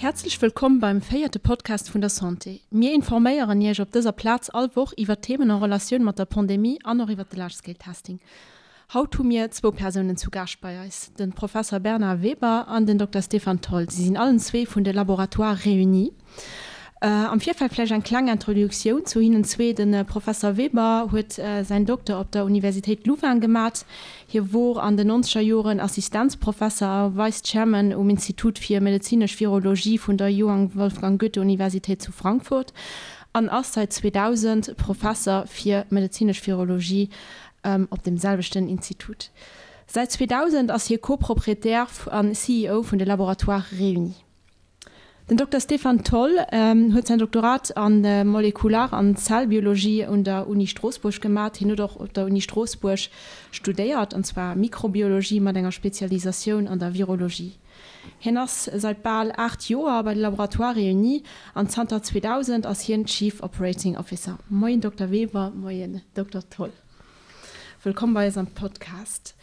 Häerzlech wëllkomm beim véierte Podcast vun der Santé. Mir informéieren Iech op dëser Plaz all Woch iwwer Themen en Relatioun mat der Pandemie an och iwwer de Large Scale Testing. Haut hu mir zwou Persounen zu Gaascht bei eis, de Professer Bernard Weber an den Dokter Stéphane Tholl. Si sinn allen zwee vun de Laboratoires Réunis. Am Virfeld vläicht eng kleng Introduktioun zu hinnen zwee. De Professer Weber huet säin Dokter op der Universitéit Louvain gemat. Hie wor an den nonzeger Joren Assistenzprofesser a Vice Chairman um Institut fir medezinesch Virologie vun der Johann Wolfgang Goethe Universitéit zu Frankfurt an ass seit 2000 Professer fir medezinesch Virologie op deem selwechten Institut. Säit 2000 ass hie Co-Proprietär an CEO vun de Laboratoires Réunis. Den Dokter Stéphane Tholl huet säin Doktorat a Molekular an Zellbiologie un der Uni Stroossbuerg gemat. Hien huet och op der Uni Stroossbuerg studéiert, an zwar Mikrobiologie mat enger Spezialisatioun an der Virologie. Hien ass seit bal 8 Joer bei de Laboratoires Réunis an zanter 2000 ass hien Chief Operating Officer. Moien Dokter Weber, moien Dokter Tholl. Wëllkomm bei eis am Podcast.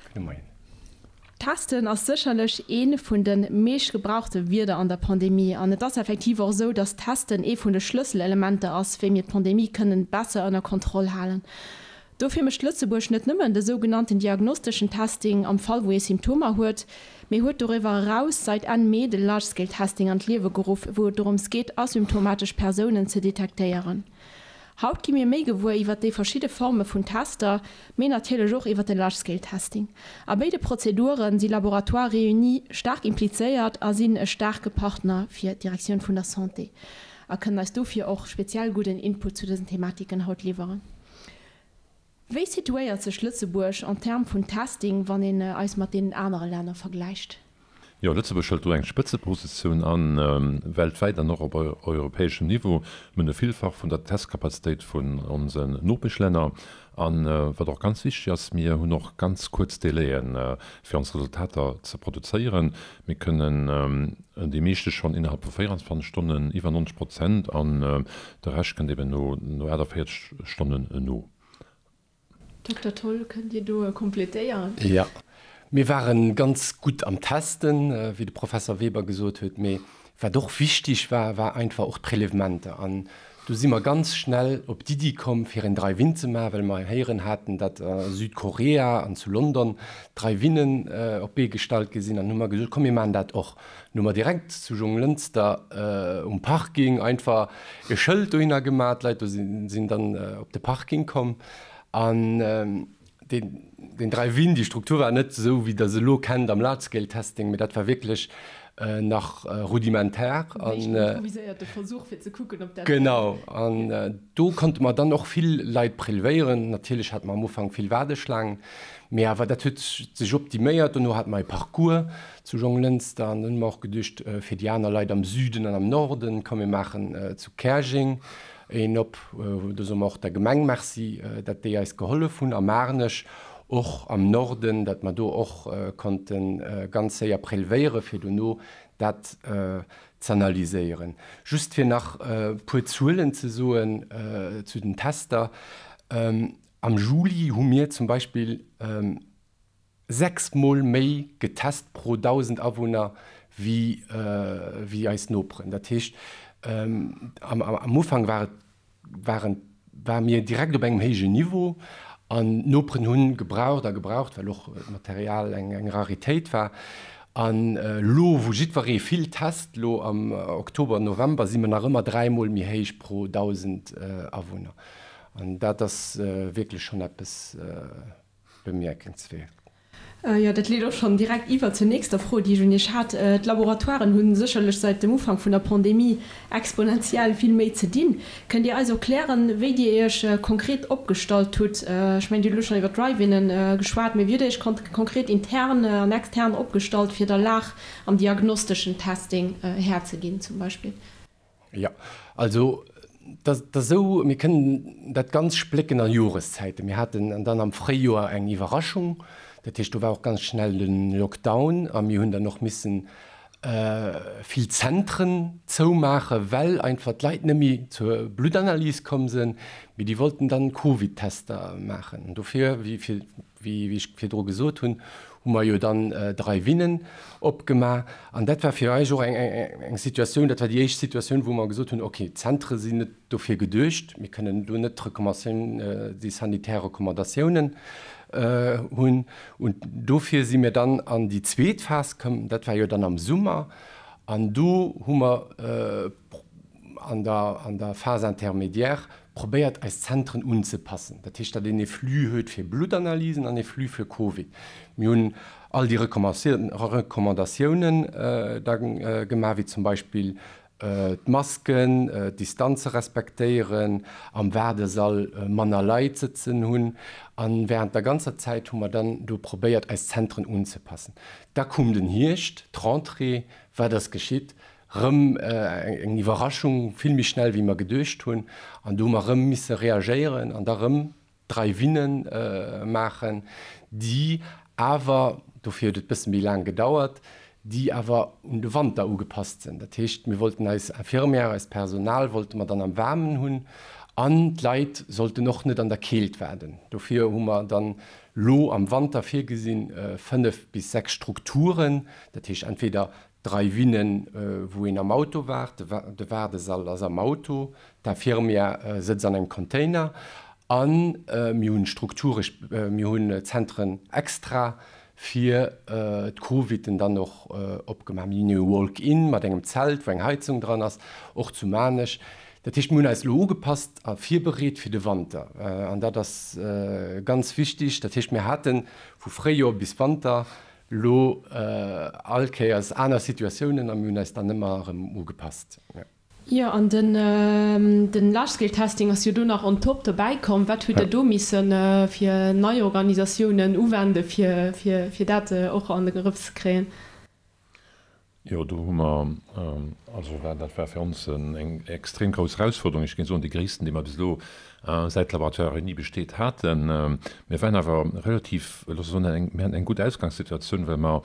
Gudde Moien. Testen ass sécherlech ee vun de meescht gebrauchte Wierder an der Pandemie. An et ass effektiv och esou, dass Testen ee vun de Schlësselelementer ass, wéi mir d'Pandemie kënnen besser ënner Kontroll halen. Dofir mécht Lëtzebuerg net nëmmen de sougenannten diagnosteschen Testing am Fall wou ee Symptomer huet, mee huet doriwwer eraus seit Enn Mee de Large Scale Testing an d'Liewe geruff, wou et dorëms geet asymptomatesch Persounen ze detektéieren. Haut gi mir méi gewuer iwwer déi verschidde Forme vun Tester, mee natierlech och iwwer de Large Scale Testing. A béide Prozedure si Laboratoires Réunis staark implizéiert a sinn e staarke Partner fir d'Direktioun vun der Santé a kënnen eis dofir och speziell gudden Input zu dësen Thematiken haut liwweren. Wéi situéiert sech Lëtzebuerg en termes vun Testing, wann een eis mat deenen anere Länner vergläicht? Jo, Lëtzebuerg hëlt do eng Spëtzepositioun an, weltwäit an och op europäeschem Niveau. Mir hunn e Villfach vun der Testkapazitéit vun onsen Nopeschlänner. An wat och ganz wichteg ass, mir hunn och ganz kuerz Délaië fir ons Resultater ze produzéieren. Mir kënnen déi meeschte schonn innerhalb vu 24 Stonnen, iwwer 90 Prozent, an de Rescht kënnt eben no 48 Stonnen no. Dokter Tholl, kënnt Dir do kompletéieren? Jo, mir ware ganz gutt am Testen, wéi de Professer Weber gesot huet. Mee wat och wichtig war, war einfach och d'Prélèvementer. An do si mer ganz schnell op d'Iddi komm, fir en Drive-in ze maachen, well mer héieren haten, datt a Südkorea an zu London Drive-innen op d'Bee gestallt gi sinn. An hu mer gesot, komm mir maachen dat och. An hu mer direkt zu Jonglënster um Parking einfach e Schëld dohinner gemaach. D'Leit do sinn dann op de Parking komm. An deen Drive-In, déi Struktur war net esou, wéi Der se elo kennt am Large-Scale-Testing, mee dat war wierklech nach rudimentär. En éischten improviséierte Versuch, fir ze kucken, ob dat. Genau. An do konnte mer dann och vill Leit prelevéieren. Natierlech hate mer am Ufank vill Waardeschlaangen, mee awer dat huet sech optiméiert. Dono hate mer e Parcours zu Jonglënster an dann hu mer och geduecht, fir déi aner Leit am Süden an am Norden, komm mir maachen zu Käerjeng een op. Do soe mer och der Gemeng Merci, datt déi eis gehollef hunn a Maarnech och am Norden, datt mer do och konnte ganz séier prelevéiere fir dono dat z'analyséieren. Just fir nach e puer Zuelen ze soen zu den Tester, Am Juli hu mir zum Beispill 6 mol méi getest pro 1.000 Awunner wéi wéi eis Noperen. Dat heescht, am Ufank war et waren ware mir direkt op engem héijen Niveau an d'Noperen hu gebraucht a gebraucht, well och d'Material eng eng Raritéit war. An elo wou jiddweree vill test, elo am Oktober, November, si mer nach ëmmer 3 mol méi héich pro 1.000 Awunner. An dat ass wierklech schonn eppes. Bemierkenswäert. Jo, dat leet och schonn direkt iwwer zur nächster Fro, déi ech un Iech hat. D'Laboratoiren hu sécherlech säit dem Ufank vun der Pandemie exponentiell vill méi ze dinn. Kënnt Dir eis erklären, wéi Dir Iech konkret opgestallt hutt? Ech mengen, Dir hutt elo schonn iwwer d'Drive-Innen geschwat, mee wéi hutt Dir Iech konkret intern an extern opgestallt, fir der Lag am diagnosteschen Testing Här ze ginn zum Beispill? Jo, also dat ass esou, mir kënnen dat ganz splécken a Joreszäiten. Mir haten dann am Fréijoer eng Iwwerraschung, dat heescht do war och ganz schnell de Lockdown a mir hunn dann och missen. vill Zentren zoumaachen, well einfach d'Leit net méi zur Bluttanalys komm sinn, mee déi wollten dann Covid-Tester maachen. An dofir, wéi ech virdru gesot hunn, hu mer jo dann Drive-Innen opgemaach. An dat war fir eis och eng Situatioun, dat war déi éischt Situatioun, wou mer gesot hunn, okay, d'Zentre sinn net dofir geduecht, mir kënnen do net d'Recommandatioun, déi sanitär Recommandatiounen hunn. Und dofir si mir dann an déi zweet Phas komm, dat war jo dann am Summer, an do hu mer an der, an der Phase intermédiaire probéiert, eis Zentren unzepassen. Dat heescht, datt een ee Flux huet fir Bluttanalysen an ee Flux fir Covid. Mir hunn all déi Recommandatiounen da gemaach, wéi zum Beispill D'Masken, d'Distanze respektéieren, am Waardesall manner Leit sëtzen hunn. A wärend der ganzer Zäit hu mer dann do probéiert, eis Zentren unzepassen. Da koum den Hierscht, d'Rentrée. Wat ass geschitt? Rëm eng Iwwerraschung, vill méi schnell wéi mer geduecht hunn. An do hu mer rëm misse reagéieren an da rëm Drive-inne maachen, déi awer, dofir huet et bësse méi laang gedauert, déi awer un de Wanter ugepasst sinn. Dat heescht, mir wollten eis Infirmière, eist Personal wollte mer dann am Waarmen hunn an d'Leit sollten och net an der Keelt waarden. Dofir hu mer dann lo am Wanter virgesinn, 5 bis 6 Strukturen, dat heescht entweder Drive-innen, wou een am Auto waart, de Waardesall ass am Auto, D'Infirmière sëtzt an engem Container a mir hunn Strukture, mir hunn Zentren extra fir d'Coviden dann och opgemaach. Mir hunn e Walk-in mat engem Zelt, wou eng Heizung dran ass, och zu Maarnech. Dat heescht, mir hunn eis elo ugepasst a virbereet fir de Wanter an dat ass ganz wichtig. Dat heescht, mir hate vu Fréijoer bis Wanter elo all Kéiers aner Situatiounen a mir hunn eis dann ëmmer erëm ugepasst. Jo, an den den Large Scale Testing ass jo do nach on top dobäi komm. Wat hutt Der do missen fir nei Organisatiounen uwende fir fir fir dat och an de Grëff ze kréien? Jo, do hu mer, also war dat war fir ons eng extrem grouss Erausforderung, ech géing soen déi gréissten, déi mer bis elo säit d'Laboratoire Réuni besteet haten. Mir waren awer relativ, loosse soen, eng, mir haten eng gutt Ausgangssituatioun, well mer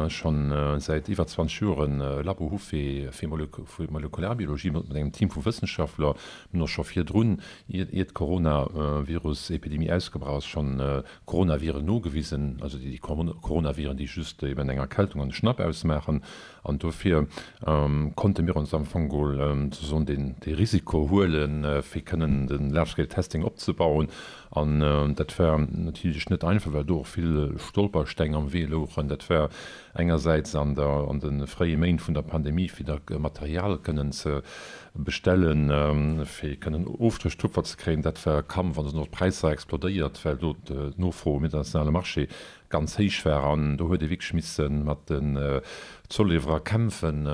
schonn säit iwwer 20 Joer e Labo hu fir Molekularbiologie mat engem Team vu Wëssenschaftler. Mir hunn och scho virdrun, ier d'Coronavirus-Epidemie ausgebrach ass, schonn Coronaviren nogewisen, also déi Coronaviren, déi just eben eng Erkältung an de Schnapp ausmaachen. An dofir konnte mir ons am Fong geholl souzesoen dee Risiko huelen, fir kënnen de Large-Scale Testing opzebauen. An dat war natierlech net einfach, well do och vill Stolpersteng am Wee louchen. Dat war engersäits an der, an de fréie Méint vun der Pandemie, fir da Material kënnen ze bestellen, fir kënnen Ofstréchtupfer ze kréien. Dat war e Kampf an do sinn och d'Präisser explodéiert, well do d'Nofro um internationale Marché ganz héich war. An do huet ee wierklech misse mat den Zolliwwerer kämpfen,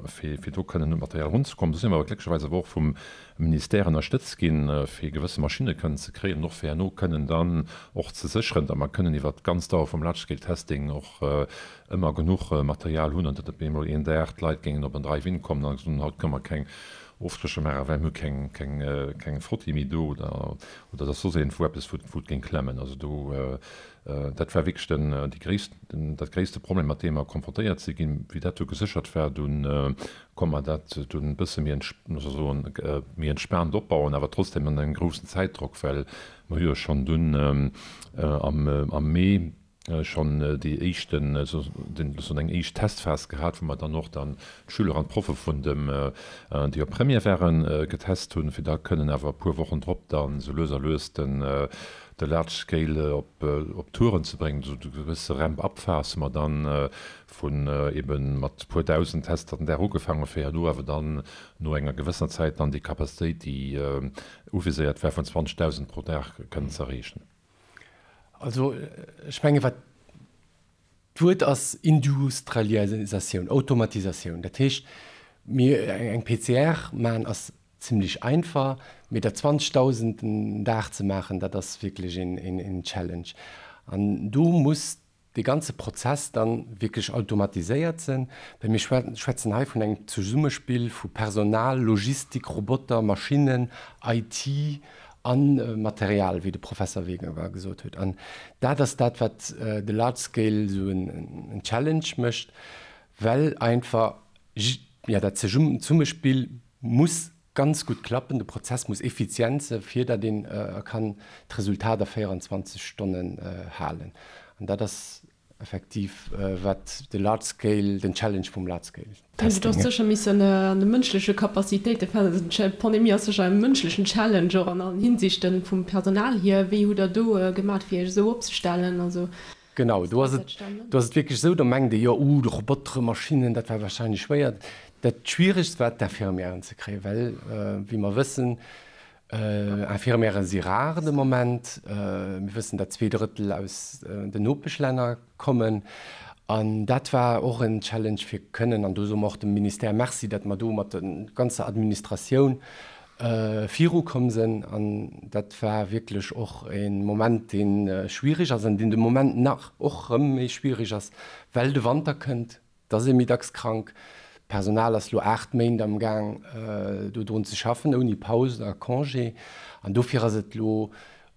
fir do kënnen un d'Material erunzekommen. Do si mer awer glécklecherweis awer och vum Ministère ënnerstëtzt ginn, fir gewësse Maschinne kënnen ze kréien an och fir herno kënnen dann och ze sécheren, datt mer kënnen iwwert d'ganz Dauer vum Large-Scale-Testing och ëmmer genuch Material hunn an datt net op eemol een Dag d'Leit géingen op en Drive-In kommen an soen, haut kënne mer keng Ofstrécher maachen, well mir hu keng, keng, keng Frotti méi do oder, oder datt soss iergendwou eppes, wou, wou et géing klemmen. Also do, dat war wierklech den, déi gréisst, den, dat gréisste Problem, mat deem mer konfrontéiert si ginn. Wéi dat du geséchert war, dunn konnt mer dat dunn e bësse méi, muss ech soen, méi entspaant opbauen, awer trotzdem an engem groussen Zäitdrock, well mer hu jo schonn dunn am, am Mee schonn déi éischten, soen eng éischt Testphas gehat, wou mer dann och dann d'Schüler an d'Proffe vun dem, déi op Première waren, getest hunn, fir da kënnen awer e puer Wochen drop dann esou lues a lues den, de Large Scale op, op Touren ze bréngen. Esou eng gewësse Ramp-up-Phas hu mer dann vun eben mat puer dausend Tester den Dag ugefaangen, fir herno awer dann no enger gewëssener Zäit dann déi Capacitéit, déi uviséiert war, vun 20.000 pro Dag kënnen ze erreechen. Also ech menge wat d'Wuert ass Industrialisatioun, Automatisatioun. Dat heescht, mir eng PCR maachen ass zimlech einfach, mee der 20.000 den Dag ze maachen, dat ass wierklech een Challenge. An do muss dee ganze Prozess dann wierklech automatiséiert sinn, well mir schwätzen hei vun engem Zesummespill vu Personal, Logistik, Roboter, Maschinnen, IT a Material, wéi de Professer Wegewer gesot huet. An dat ass dat, wat de Large Scale esou en Challenge mécht. Well einfach, jo, dat Zesummespill muss ganz gutt klappen, de Prozess muss effizient se fir datt een kann d'Resultat a 24 Stonnen halen. An dat ass effektiv wat de Large Scale, den Challenge vum Large Scale Testing. Du hues sécher missen an de mënschleche Capacitéite, d'Pandemie ass sécher e mënschlechen Challenge och an allen Hinsichten, vum Personal hier. Wéi hutt Der do gemat fir Iech esou opzestellen? Also Genau, do ass et, do ass et wierklech esou, do mengt ee jo, uh, de Robotere, Maschinnen, dat war wahrscheinlech schwéier. Dat Schwieregst war d'Infirmièren ze kréien, well, wéi mer wëssen, Infirmièrë si rar de Moment. Mir wëssen, datt 2/3 aus den Nopeschlänner kommen. An dat war och en Challenge fir kënnen, an do soe mer och dem Ministère Merci, datt mer do mat der ganzer Administratioun virukomm sinn. An dat war wierklech och e Moment, dee schwierig ass an deen de Moment nach och erëm méi schwierig ass, well de Wanter kënnt, et ass ee méi dacks krank. D'Personal ass elo 8 Méint am Gaang, do drun ze schaffen, ouni Paus a Congé. An dofir ass et elo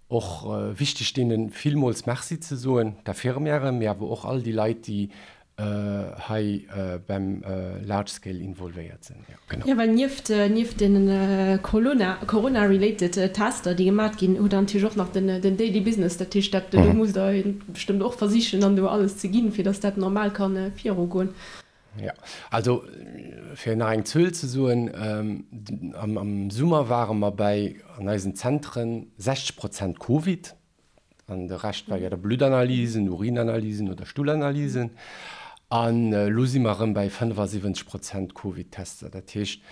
och wichteg, deene villmools Merci ze soen, d'Infirmièren, mee awer och all déi Leit, déi hei beim Large Scale involvéiert sinn. Jo, genau. Jo, well nieft, nieft deene Corona, Corona-related Tester, déi gemat ginn, hutt Der natierlech och nach den, den Daily Business. Dat heescht, dat, do musst Der bestëmmt och versichen, dann do alles ze ginn, fir datt dat normal ka virugoen. Jo, also fir nach eng Zuel ze soen, am, am Summer ware mer bäi an eisen Zentren 60 Prozent Covid. An de Rescht war jo da Bluttanalysen, Urinanalysen oder Stullanalysen. An elo si mer erëm bäi 75 Prozent Covid-Tester. Dat heescht,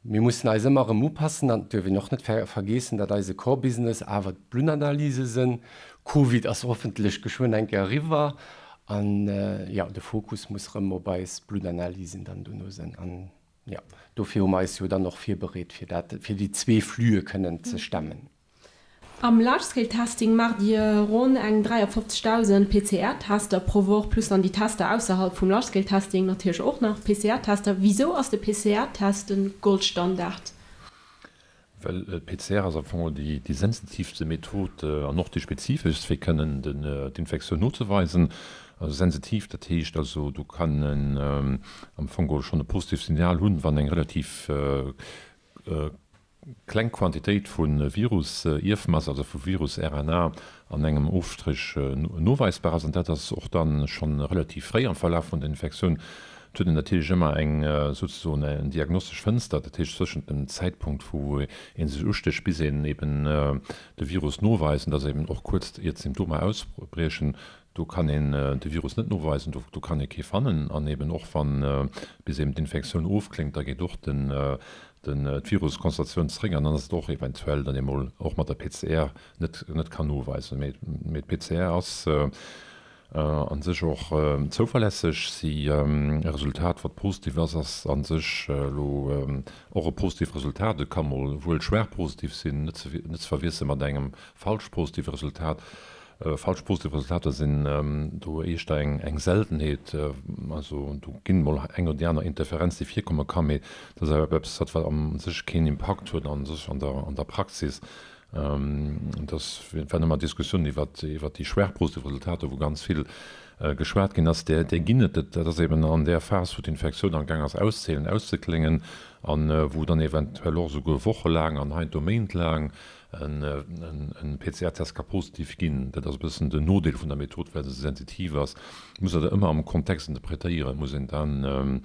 mir mussen eis ëmmer erëm upassen. An et duerf een och net vergeessen, datt eise Core-Business awer d'Bluttanalyse sinn. Covid ass hoffentlech geschwënn eng Kéier eriwwer. An jo, de Fokus muss erëm op eis Bluttanalysen dann dono sinn. An jo, dofir hu mer eis jo dann och virbereet, fir dat, fir déi zwee Flüe kënnen ze stemmen. Am Large-Scale Testing maacht Dir ronn eng 53.000 PCR-Tester pro Woch, plus dann déi Tester ausserhalb vum Large-Scale Testing natierlech och nach PCR-Tester. Wisou ass de PCR-Test de Goldstandard? Well d'PCR ass am Fong déi sensitiivste Method an och déi spezifeschst, fir kënnen d'Infektioun nozeweisen. Also sensitiv, dat heescht also, do kann en am Fong geholl schonn e positivt Signal hunn, wann eng relativ Kleng Quantitéit vu Virus-Ierfmass, also vu Virus-RNA an engem Ofstréch noweisbar ass, an dat ass och dann schonn relativ fréi am Verlaf vun der Infektioun. Et huet een natierlech ëmmer eng souzesoen eng diagnostesch Fënster, dat heescht zwëschent dem Zäitpunkt wou ee sech ustécht bis een eben de Virus noweist, an dat ass eben och kuerz iert d'Symptomer ausbriechen, Do kann een de Virus net noweisen, do kann ee kee fannen. An eben och wann bis eben d'Infektioun ofkléngt, da geet och den d'Viruskonzentratioun zeréck an dann ass et och eventuell dann emol och mat der PCR net net kann noweisen. Mee mee d'PCR ass a sech och zouverlässeg. Si e Resultat wat positiv ass, ass a sech elo och e positivt Resultat. Et ka mol wuel schwaach positiv sinn, net ze net ze verwiessele mat engem falsch positive Resultat. Falsch positiv Resultater sinn do éischter eng Seltenheet. Also do ginn mol eng oder déi aner Interferenz, déi virkomme kann, mee dat ass awer eppes, wat wat a sech keen Impakt huet a sech an der an der Praxis. Et ass waren ëmmer Diskussiounen iwwer iwwer déi schwaach positiv Resultater, wou ganz vill geschwat ginn ass. Där där ginn et. Dat ass eben an där Phas, wou d'Infektioun amgaang ass auszehelen, auszekléngen an wou dann eventuell och esouguer wochelaang an heiansdo méintlaang En PCR-Test ka positiv ginn. Dat ass e bëssen den Nodeel vun der Method, well se esou sensitiv ass. Et muss een dat ëmmer am Kontext interpretéieren. Et muss een dann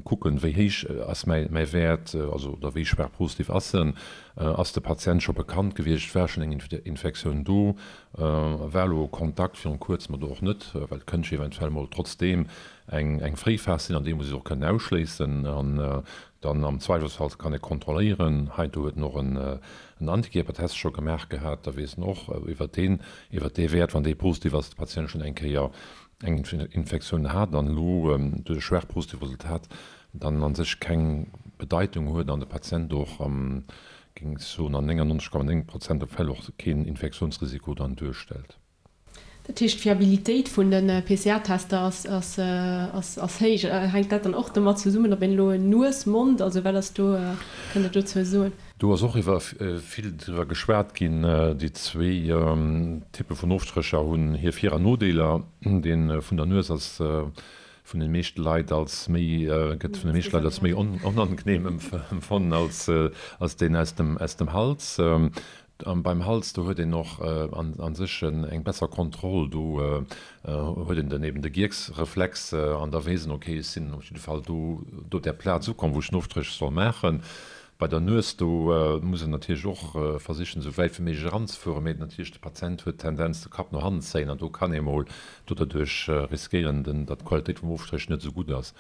kucken, wéi héich ass mäi Wäert, also oder wéi schwaach positiv ass en. Ass de Patient scho bekannt gewiescht? War schonn eng Infektioun do? War elo Kontakt virun kuerzem oder och net? Well et kënnt jo eventuell mol trotzdeem eng Fréiphas sinn, an déi muss ech och kënnen ausschléissen. An dann am Zweifelsfall kann ee kontrolléieren. Heiansdo huet en och en Antikierpertest scho gemaach gehat, da weess en och iwwert deen, iwwert dee Wäert, wann dee positiv ass, de Patient schonn eng Kéier eng Infektioun hat an elo duerch e schwaach positivt Resultat dann a sech keng Bedeitung huet an de Patient och am, géing ech soen, an 99,9 Prozent der Fäll och keen Infektiounsrisiko dann duerstellt. Dat heescht, d'Fiabilitéit vun de PCR-Tester ass héich. Hänkt dat dann och domat zesummen, ob een elo Nues, Mond, also wat ass do, kënnt Der dozou soen? Do ass och iwwer vill driwwer geschwat ginn. Déi zwéi Typpe vun Ofstrécher hunn hir Vir an Nodeeler. Dee vun der Nues ass. Vun den meeschte Leit als méi, gëtt vun de meeschte Leit als méi onangenehm empfonnen als, als deen aus dem, aus dem Hals. An beim Hals, do huet een och an, an sech eng besser Kontroll. Do huet een den eben de Gierksreflex an da weess een, okay, ech sinn op jidde Fall do, do op där Plaz ukomm, wou ech den Ofstréch soll maachen. Bei der Nues, do muss een natierlech och versichen, esou wäit wéi méiglech eranzefueren, mee natierlech de Patient huet d'Tendenz, de Kapp no hannen ze zéien an do kann ee mol do derduerch riskéieren, datt d'Qualitéit vum Ofstréch net esou gutt ass.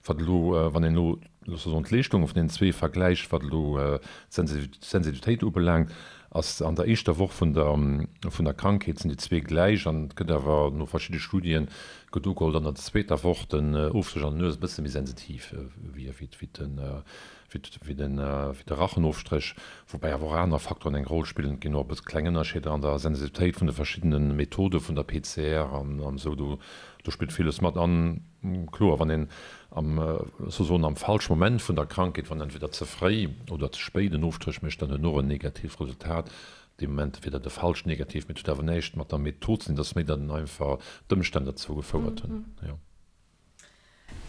Wat elo, wann een elo, loosse mer soen, d'Leeschtunge vun deenen zwee vergläicht, wat elo d'Sensitivitéit ubelaangt, ass an der éischter Woch vun der vun der Krankheet sinn déi zwee gläich an et gëtt awer no verschidde Studien gëtt ugeholl, datt an der zweeter Woch den Ofstréch an der Nues e bësse méi sensitiv wier wéi den wéi de Rachenofstréch, woubäi awer och aner Faktoren eng Roll spillen. Et ginn och e bësse kleng Ënnerscheeder an der Sensitivitéit vun de verschiddene Methode vun der PCR an esou. Do do spillt villes mat. An kloer, wann een am, souzesoen am falsche Moment vun der Krankheet, wann entweder ze fréi oder ze spéit en Ofstréch mécht, dann huet en och en negatiivt Resultat. Dee Moment wier dat e falscht Negativ, mee et huet awer näischt mat der Method ze dinn, et ass méi, datt en einfach d'Ëmstänn derzou gefouert hunn, jo.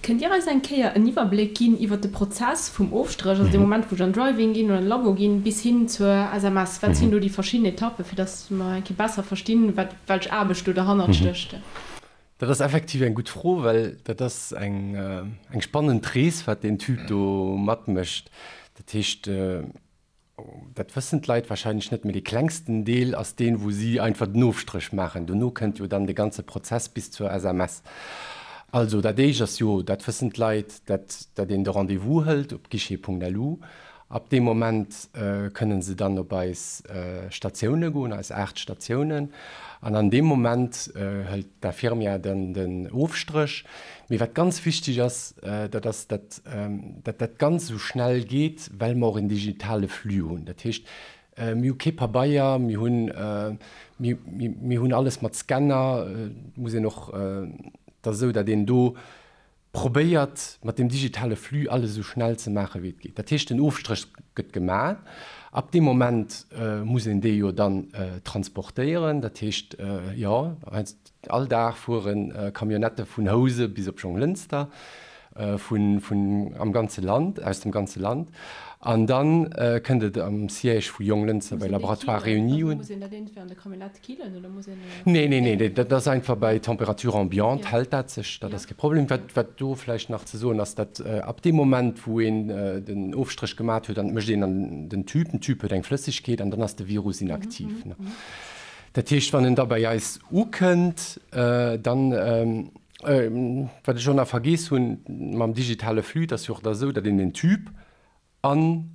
Kënnt Dir eis eng Kéier en Iwwerbléck ginn iwwer de Prozess vum Ofstréch, also dee Moment wou ech an Drive-In ginn oder an de Labo ginn, bis hin zur SMS? Wat sinn do déi verschidden Etappen, fir datt mer eng Kéier besser verstinn, wat, welch Aarbecht do derhannert stécht? Dat ass effektiv eng gutt Fro, well dat ass eng, eng spannend Rees, wat deen Typ do matmécht. Dat heescht, Dat wëssen d'Leit wahrscheinlech net, mee dee klengsten Deel ass deen, wou si einfach den Ofstréch maachen. Dono kënnt jo dann de ganze Prozess bis zur SMS. Also dat éischt ass jo, dat wëssen d'Leit, dat dat een de Rendez-vous hëlt op guichet.lu. Ab deem Moment kënnen se dann op eis Statioune goen, eis 8 Statiounen. An an deem Moment hëlt d'Infirmière dann den Ofstréch. Mee wat ganz wichteg ass, dat ass, dat dat dat Ganzt esou schnell geet, well mer och en digitale Flux hunn. Dat heescht, mir hu kee Pabeier, mir hunn, mir, mir hunn alles mat Scanner. Et muss een och, et ass esou, datt een do probéiert, mat deem digitale Flux alles esou schnell ze maachen, wéi et geet. Dat heescht, den Ofstréch gëtt gemaach. Ab deem Moment muss een dee jo dann transportéieren. Dat heescht, jo, All Dag fuere Camionnettë vun Housen bis op Jonglënster, vun, vun am ganze Land, aus dem ganze Land. An dann kënnt et am Siège vu Jonglënster bei Laboratoires Réunis un. Muss een dat iergendwéi an der Camionnette killen oder muss een. Nee, nee, nee, dat ass einfach bei Température ambiante hält dat sech, dat ass kee Problem. Wat, wat do vläicht nach ze soen ass, datt ab deem Moment, wou een den Ofstréch gemat huet, an et mécht een an den Tube, den Tube huet eng Flëssegkeet an dann ass de Virus inaktiv. Dat heescht, wann en da bei eis ukënnt, dann, wat ech och nach vergeess hunn, mam digitale Flux, et ass jo och da esou, datt een en Tube an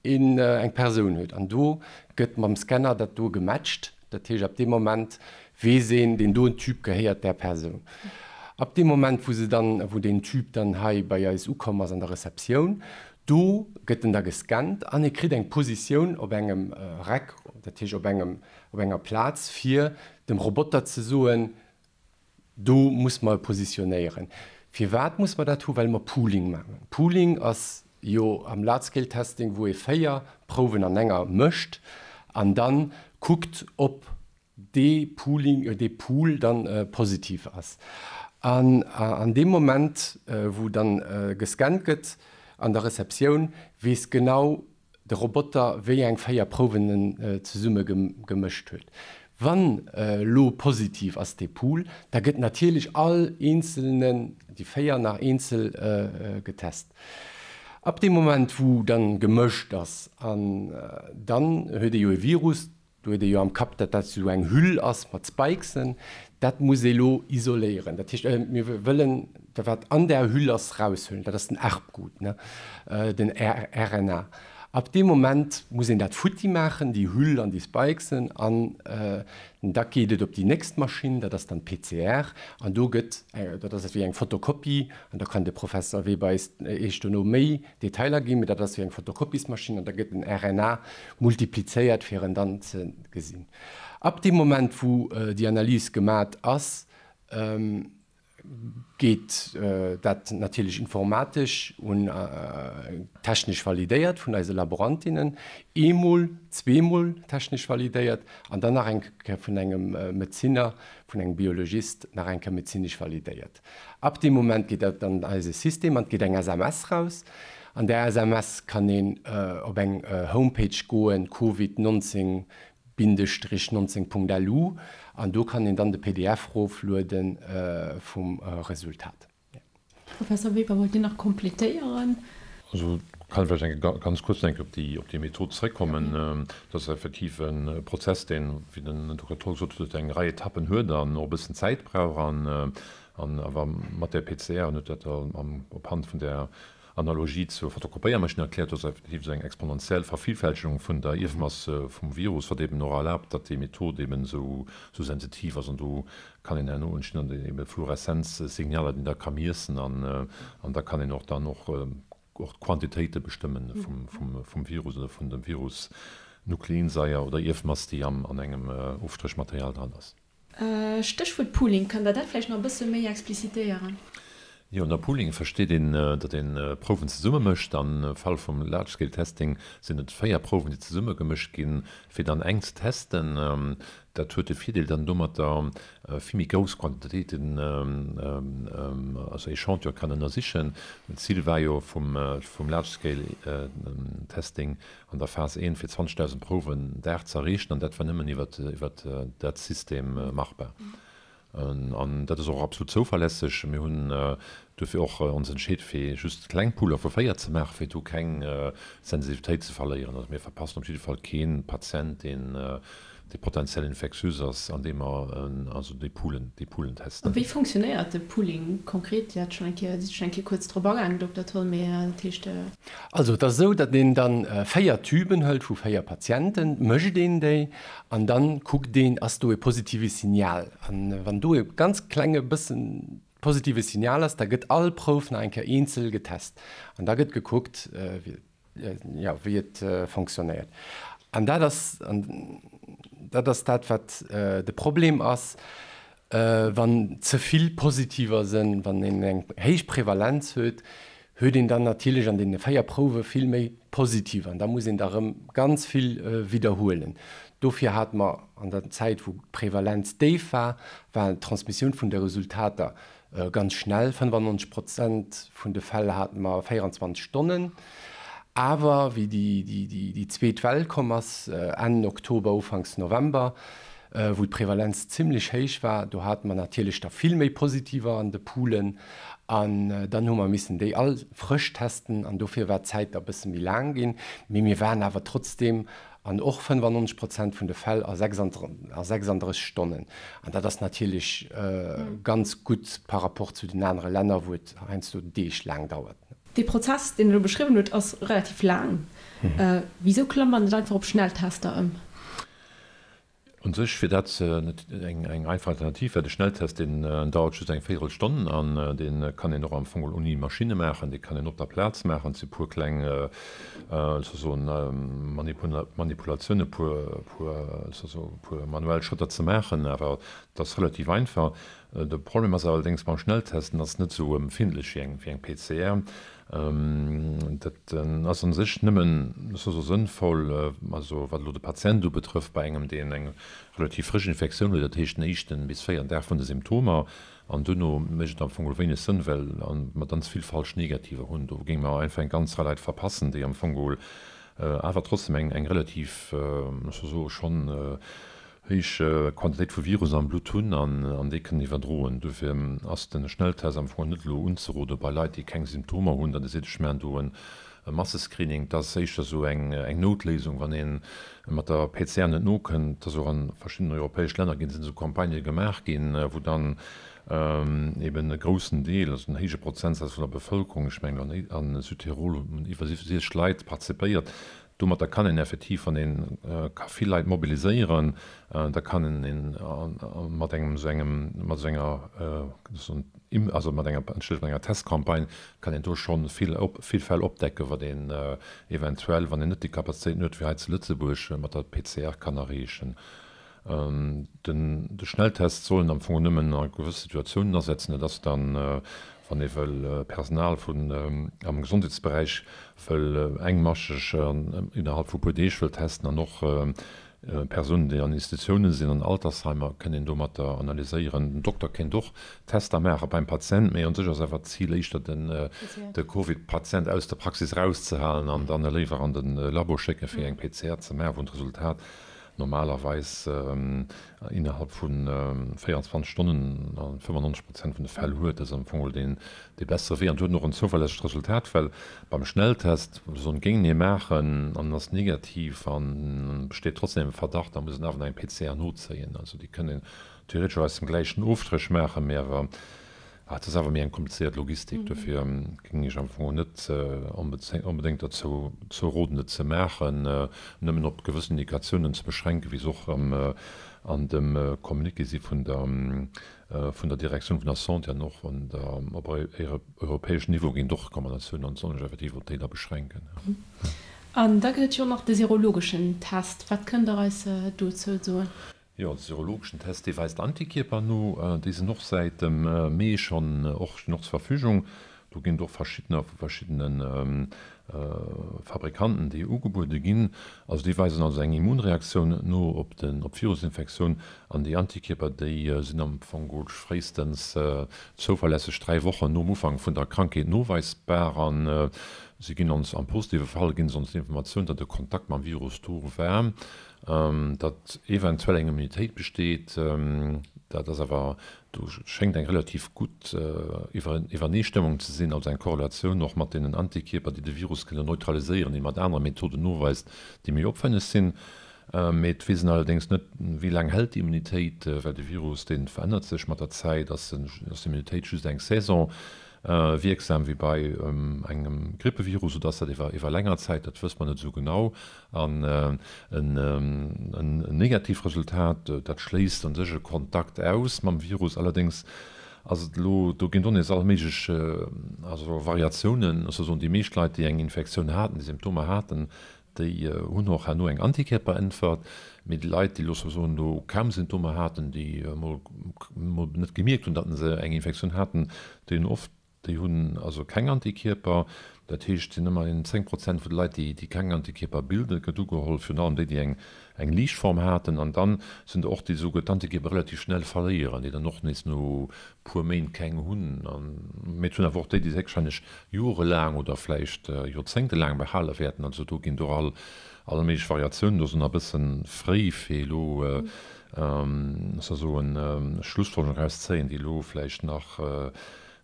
een, eng Persoun huet. An do gëtt mam Scanner dat do gematcht. Dat heescht, ab deem Moment weess een, deen doen Tube gehéiert där Persoun. Ab deem Moment, wou se dann, wou deen Tube dann hei bei eis ukomm ass an der Receptioun, do gëtt en da gescannt an e kritt eng Positioun op engem Rack, dat heescht op engem, op enger Plaz, fir dem Roboter ze soen, do muss mer e positionéieren. Firwat muss mer dat hu? Well mer Pooling maachen. Pooling ass jo am Large-Scale Testing, wou ee 4 Prouwen an enger mécht an da kuckt, ob dee Pooling, dee Pool dann positiv ass. An an deem Moment, wou dann gescannt gëtt an der Receptioun, weess genau de Roboter, wéi eng 4 Prouwen en zesumme gemëscht huet. Wann elo positiv ass dee Pool, da gëtt natierlech all eenzelnen, déi 4 nach eenzel getest. Ab deem Moment, wou dann gemëscht ass, an dann huet ee jo e Virus, Do huet ee jo am Kapp, datt dat esou eng Hüll ass mat Spikesen. Dat muss ee lo isoléieren. Dat heescht, mir wëllen dat, wat an där Hüll ass, eraushuelen. Dat ass den Erbgut, ne, den RNA. Ab deem Moment muss een dat futti maachen, déi Hüll an déi Spikesen, an da geet et op déi nächst Maschinn, dat ass dann d'PCR. An do gëtt, dat ass ewéi eng Fotokopie, an da kann de Professer Weber eis Iech dono méi Detailer ginn, mee dat ass wéi eng Fotokopiesmaschinn an da gëtt den RNA multiplizéiert fir en dann ze gesinn. Ab deem Moment wou déi Analys gemat ass, Geet dat natierlech informatesch un technesch validéiert vun eise Laborantinnen, eemol, zweemol technesch validéiert an dann nach eng Kéier vun engem Medezinner, vun engem Biologist nach eng Kéier medezinesch validéiert. Ab deem Moment geet dat an eise System an et geet eng SMS raus. An där SMS kann een op eng Homepage goen, Covid 19 Bindestrich 19 Punkt lu an do kann een dann de pdf roflueden vum Resultat. Professor Weber, wollt Dir nach complétéieren? Also kann ech vläicht eng ganz kuerz eng Kéier op déi op déi Method zréckkommen. Dat ass effektiv e Prozess, deen, wéi den Dokter Tholl gesot huet, eng Rei Etappen huet an och e bëssen Zäit brauch an an awer mat där PCR, en huet dat op Hand vun där Analogie zur Fotokopéiermaschinn erkläert, do ass effektiv esou eng exponentiell Vervillfältegung vun der Ierfmass vum Virus, wat eben och erlaabt, datt déi Method eben esou sensitiv ass. An do kann een herno entstinn dann ebe Fluoreszenzsignaler, déi een da ka miessen an da kann een och dann och d'Quantitéite bestëmmen vum Virus oder vun dem Virus-Nukleinsaier oder Ierfmass, déi an engem Ofstréchmaterial dran ass. Stéchwuert Pooling, kënnt Der dat vläicht nach e bësse méi explicitéieren? Jo, ënner Pooling versteet een, datt ee Prouwen zesumme mécht. Am Fall vum Large Scale Testing sinn et 4 Prouwen, déi zesumme gemëscht ginn, fir dann eng ze testen. Dat huet de Virdeel, datt een domatter vill méi grouss Quantitéiten, also Echantillon kann ënnersichen. D'Zil war jo vum Large Scale Testing, an der Phas I fir 20.000 Prouwen Dag ze erreechen, an dat war nëmmen iwwer dat System machbar. An dat ass och absolut zouverlässeg. Mir hunn duerfir och ons entscheet, fir just kleng Pooler vu 4 ze maachen, fir do keng Sensitivitéit ze verléieren. Also mir verpassen op jidde Fall kee Patient, deen dee potentiell infektiös ass, andeem mer also déi Poolen, déi Poolen testen. A wéi fonctionnéiert de Pooling konkret? Dir hat schonn eng Kéier, sidd schonn eng Kéier kuerz drop agaangen, Dokter Tholl, mee dat heescht. Also et ass esou, datt een dann 4 Tüben hëlt vu 4 Patienten, mécht een déi an dann kuckt een, ass do e positive Signal. An wann do e ganz klenge bëssen positive Signal ass, da gëtt all Prouf nach eng Kéier eenzel getest an da gëtt gekuckt, wéi jo, wéi et fonctionnéiert. An dat ass, an dat ass dat, wat de Problem ass, wann ze vill Positiver sinn, wann een eng héich Prevalenz huet, huet een dann natierlech an deene 4 Prouwe vill méi Positiver an da muss een da erëm ganz vill widderhuelen. Dofir hate mer an der Zäit, wou d'Prevalenz déif war, war d'Transmissioun vun de Resultater Ganz schnell, 95 Prozent vun de Fäll hate mer 24 Stonnen. Awer wéi déi zweet Well komm ass, Enn Oktober, Ufanks November, wou d'Prevalenz zimlech héich war, do hate mer natierlech der vill méi Positiver an de Poolen. An dann hu mer missen déi all frësch testen an dofir war d'Zäit da bësse méi laang ginn. Mee mir waren awer trotzdeem An och 95 Prozent vun de Fäll a 36 Stonnen. An dat ass natierlech ganz gutt par rapport zu den anere Länner, wou et heiansdo Deeg laang dauert. Dee Prozess, deen Der elo beschriwwen hutt, ass relativ laang. Wisou klammt man net einfach op Schnelltester ëm? Un sech wier dat eng einfach Alternativ, well de Schnelltest deen dauert just eng Véierelstonn an dee kann een och am Fong geholl ouni Maschinne maachen, dee kann een op der Plaz maachen. Et si puer kleng soen Manipulatiounen, puer puer manuell Schrëtter ze maachen, awer et ass relativ einfach. De Problem ass allerdéngs beim Schnelltest, en ass net esou empfindlech wéi eng PCR. Dat ass a sech nëmmen esou sënnvoll, also wat elo de Patient ubetrëfft, bei engem, deen eng relativ frësch Infektioun huet, dat heescht den éischten bis véierten Dag vun de Symptomer. An duerno mécht et am Fong geholl wéineg Sënn, well mer dann ze vill falsch Negativer hunn. Do géinge mer einfach eng ganz Rei Leit verpassen, déi am Fong geholl awer trotzdem eng relativ, ech soll soen, schonn héich Quantitéit vu Virus am Blutt hunn an déi kënnen iwwerdroen. Dofir ass de Schnelltest am Fong net elo unzerode bei Leit, déi keng Symptomer hunn, datt ee seet, ech maachen do e Massescreening. Dat ass éischter esou eng Noutléisung, wann ee mat der PCR net nokënnt. Et ass och a verschiddenen europäesch Länner ginn, sinn esou Campagnë gemaach ginn, wou dann eben e groussen Deel, also en héije Prozentsaz vun der Bevëlkerung, ech mengen a Südtirol hunn iwwer 60 Leit participéiert, Domatter kann een effektiv, wann ee ka vill Leit mobiliséieren, da kann een mat engem esou engem, mat esou enger, also mat enger, entschëllegt, mat enger Testcampagne kann een do scho vill op, vill Fäll opdecken, wat een eventuell, wann een net déi Kapazitéiten huet wéi hei zu Lëtzebuerg, mat der PCR kann erreechen. Den de Schnelltest soll een am Fong nëmmen a gewësse Situatiounen asetzen. Dat ass dann, wann ee wëll Personal vun am Gesondheetsberäich wëll engmascheg innerhalb vu puer Deeg wëll testen an och Persounen, déi an Institutiounen sinn, an Altersheimer, kënnt een domatter analyséieren. Den Dokter kéint och Tester maache beim Patient, mee un sech ass awer d'Zil éischter den de Covid-Patient aus der Praxis erauszehalen an dann e léiwer an de Labo schécken, fir eng PCR ze maachen, wou en d'Resultat normalerweis innerhalb vu 24 Stonnen a 95 Prozent vun de Fäll huet. Dat ass am Fong deen dee bessere Wee an huet och en zouverlässegt Resultat, well beim Schnelltest, soen, géing ee maachen an en ass negativ an besteet trotzdem e Verdacht, da muss een awer nach eng PCR nozéien. Also déi kënnt een theoretesch och aus dem gläichen Ofstréch maachen, mee awer Et ass awer méi eng komplizéiert Logistik, dofir géing ech am Fong net onbedéngt derzou roden, et ze maachen, nëmmen op gewëssen Indikatiounen ze beschränken, wéi se och an dem Communiqué si vun der vun der Direktioun vun der Santé an och op europäeschem Niveau ginn et och Recommandatiounen an et soll sech effektiv op déi da beschränken. An da gëtt et jo och nach de serologeschen Test. Wat kënnt Der eis dozou soen? Jo, de serologeschen Test, dee weist Antikierper no. Déi sinn och säit dem Mee schonn och stinn och zur Verfügung. Do ginn et och verschiddener vu verschiddene Fabrikanten, déi ugebuede ginn. Also déi weisen also eng Immunreaktioun no op den op d'Virusinfektioun. An déi Antikierper, déi sinn am Fong geholl fréistens zouverlässeg 3 Wochen nom Ufank vun der Krankheet noweisbar. An si ginn ons am positive Fall ginn se ons d'Informatioun, datt e Kontakt mam Virus do war. Datt eventuell eng Immunitéit besteet, dat ass awer, do schéngt eng relativ gutt Iwwereneestëmmung ze sinn, also eng Korrelatioun och mat deenen Antikierper, déi de Virus kënnen neutraliséieren, déi mat anere Methoden noweist, déi méi opwenneg sinn. Mee et weess een allerdéngs net, wéi laang hält déi Immunitéit, well de Virus, dee verännert sech mat der Zäit. Ass d'Immunitéit just eng Saison wierksam wéi bei engem Grippevirus oder ass dat iwwer länger Zäit? Dat wësst mer net esou genau. An en negatiivt Resultat, dat schléisst an sech e Kontakt aus mam Virus. Allerdéngs ass et elo, do ginn et och nees all méiglech also Variatiounen. Ech soll soen, déi meescht Leit, déi eng Infektioun haten, déi Symptomer haten, déi hunn och herno eng Antikierperäntwert. Mee déi Leit, déi elo soll soen, elo kaum Symptomer haten, déi emol net gemierkt hunn, datt se eng Infektioun haten, déi hunn oft Déi hunn also keng Antikierper. Dat heescht, et sinn ëmmerhin 10 Prozent vun de Leit, déi keng Antikierper bilden. Et gëtt ugeholl, virun allem déi, déi eng eng liicht Form haten. An dann sinn der och, déi esouguer d'Antikierper relativ schnell verléieren, déi dann och nees no puer Méint keng hunn. Mee et hunn awer och déi, déi se héchstwahrscheinlech jorelaang oder vläicht joerzéngtelaang behale wäerten. Also do ginn et och all all méiglech Variatiounen. Do ass et nach e bësse fréi, fir elo, soll soen, Schlussfolgerungen erauszéien, déi elo vläicht nach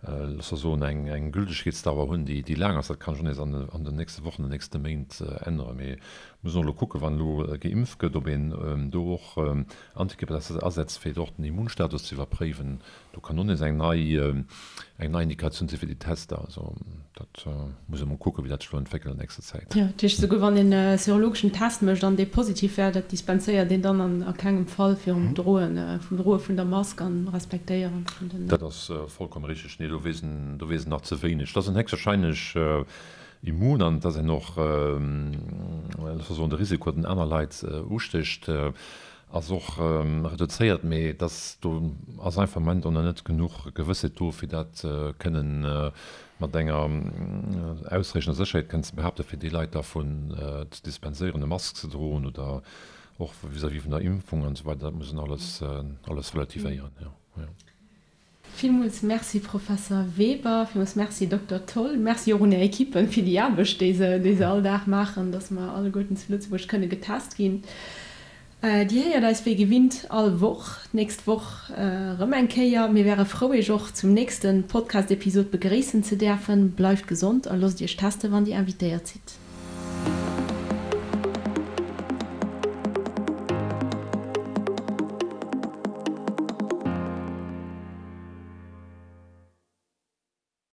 loosse mer soen, eng Gültegkeetsdauer hunn, déi laang ass. Dat kann sech och nees an den nächste Wochen, den nächste Méint änneren. Mee mir mussen och elo kucken, wann elo geimpft gëtt, ob een do och Antikierper asetzt, fir och den Immunstatus ze iwwerpréiwen. Do kann och nees eng nei eng nei Indikatioun si fir déi Tester. Also dat muss ee mol kucken, wéi dat sech elo entwéckelt an nächster Zäit. Jo, dat heescht, esouguer wann een e serologeschen Test mécht an dee positiv wär, dat dispenséiert een dann an a kengem Fall virum Droen, vum Droe vun der Mask an Respektéieren vun den. Dat ass vollkomme richteg. Nee, do weess en, do weess en nach ze wéineg. Et ass en héchstwahrscheinlech immun an et ass een och, loosse mer soen, de Risiko, datt en aner Leit ustécht, Ass och reduzéiert, mee et ass, do ass einfach am Moment och nach net genuch Gewëssheet do, fir dat kënnen mat enger ausreechender Sécherheet kënnen ze behaapten, fir déi Leit dervun ze dispenséieren, e Mask ze droen oder och vis-à-vis vun der Impfung an esou weider. Dat muss een alles, alles relativéieren, jo, jo. Villmools Merci Professor Weber, villmools Merci Dokter Tholl, Merci och un Är Equippen fir déi Aarbecht déi se déi se all Dag maachen, dass mer alleguerten zu Lëtzebuerg kënne getest ginn. Dir héiert eis wéi gewinnt all Woch, d'nächst Woch erëm eng Kéier. Mir wäre frou Iech och zum nächste Podcast-Episod begréissen ze däerfen. Bleift gesond a loosst Iech teste wann Dir invitéiert sidd.